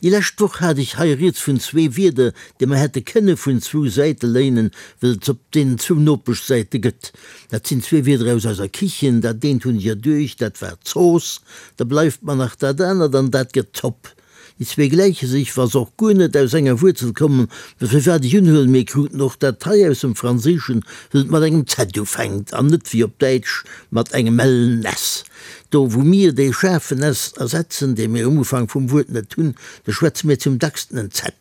Déi lescht Woch hat ech hei rieds vun zwee Wierder, déi mer hätte kënne vun zwou Säite léinen, wëll et s'op deenen zwou Nopeschsäite gëtt. Dat sinn zwee Wierder aus eiser Kichen. Dat eent hunn ech erduecht, dat war Zooss. Da bleift mer nach dat anert, an dat gëtt Zopp. Déi zwee gläiche sech, wa se och guer net aus enger Wuerzel kommen, mä firwat ech unhuelen, mir kruten och dat hei aus dem Franséischen, wëll et mat engem Z ufänkt an net wéi op Däitsch mat engem ellen S. Do wou mir dee schaarfen S ersetzen, dee mir um Ufank vum Wuert net hunn, do schwätze mir zum dacksten en Z.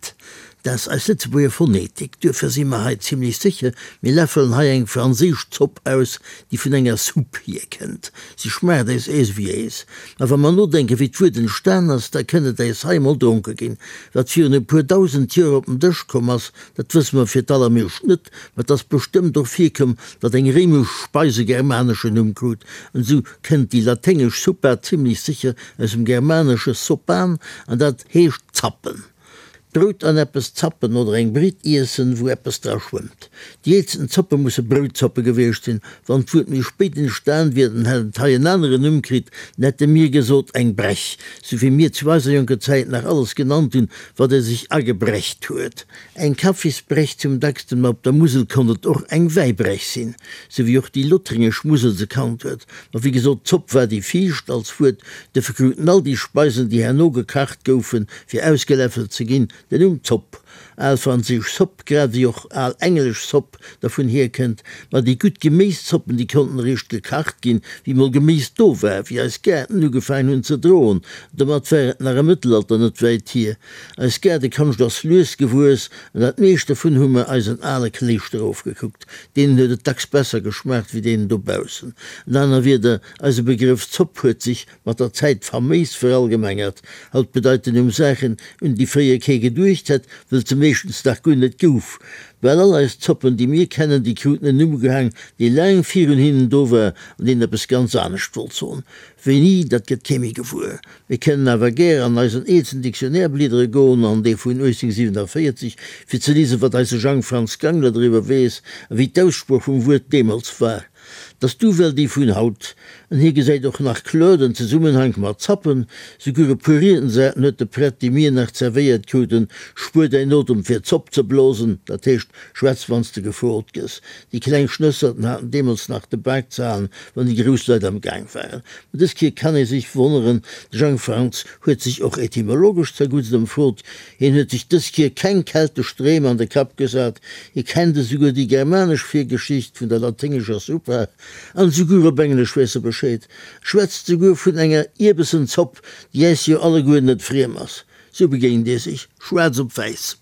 Dat ass eis Lëtzebuerger Phonetik. Duerfir si mer hei zimlech sécher, mir läffelen hei eng franséisch Zopp aus, déi vun enger Soupe hierkënnt. Si schmaacht äis äis ewéi äis. Mä wa mer nodenken, wéi d'Wuert entstan ass, da kënnt et äis hei emol dronke ginn. Wat virun e puer dausend Joer op den Dësch komm ass, dat wësse mer fir d'allermeescht net, mä et ass bestëmmt och virkomm, datt eng réimesch Speis e germaneschen Numm krut. An esou kënnt déi laténgesch suppa zimlech sécher aus dem germanesche sopan, an dat heescht zappen. Brout an eppes zappen oder eng Britt iessen, wou eppes dra schwëmmt. Déi eelsten Zoppe musse Broutzoppe gewiescht sinn. Wann d'Wuert méi spéit entstan wier, dann hätt et hei en aneren Numm kritt, dann hätte mir gesot eng Brech, sou wéi mir zu eiser jonker Zäit nach alles genannt hunn, wat ee sech agebrecht huet. Eng Kaffisbrech zum dacksten, ma op der Musel konnt et och eng Wäibrech sinn, sou wéi och déi lothringesch Musel se kannt huet. Ma wéi gesot, d'Zopp war déi viischt als Wuert, Duerfir kruten all déi Speisen, déi herno gekacht goufen, fir ausgeläffelt ze ginn, den Numm Zopp. Al franséisch Soupe, grad ewéi och al englesch Sop dervun hierkënnt. Ma déi gutt Geméiszoppen, déi konnten eréischt gekacht ginn, wéi mol Geméis do war, wéi eis Gaarten ugefaangen hunn ze droen. Domat war et nach am Mëttelalter net wäit hier. Eis Gaardekonscht ass lues gewuess, an dat meescht dovun hu mer eisen ale Kléischter ofgekuckt. Deenen huet et dacks besser geschmaacht wéi deenen dobaussen. An aner Wierder, Eise Begrëff Zopp huet sech mat der Zäit faméis verallgemengert. Haut bedeit den Numm Saachen, un déi fréier kee geduecht hätt, wëll et se meeschtens nach guer net gouf. Bal all eis Zoppen, déi mir kennen, déi kruten en Numm ugehaang, dee laang virun hinnen do war an deen eppes ganz anescht wollt soen. Wéini, dat gëtt kee méi gewuer. Mir kënnen awer gär an eisen eelsten Dictionnaire bliedere goen, an dee vun 1847, fir ze liesen, wat eise Jang Franz Gangler driwwer weess a wéi d'Aussprooch vum Wuert deemools war. T'ass d'Uwell déi vun haut. An hie gesäit och nach kloer den Zesummenhank mat Zappen. Souguer e puer Riedensarten huet de Prett, déi mir nach zerwéiert kruten, Spuer däin Otem fir d'Zopp ze blosen, dat heescht, schwätz wann s de gefrot gëss. Déi kleng Schnësserten haten deemools nach de Bak ze halen, wann déi grouss Leit am Gaang waren. Mä dës Kéier kann ee sech wonneren, de Jang Franz huet sech och etymologesch zerguttst ëmfrot, Hien huet sech dës Kier keng keltesch Dreem an de Kapp gesat, hie kennt esouguer déi germanesch Virgeschicht vun der laténgescher Suppa, an esouguer op Englesch weess e Bescheed, schwätzt esouguer vun enger Ierbesenzopp, déi äis jo alleguer net friem ass. Sou begéint ee sech, schwaarz op wäiss.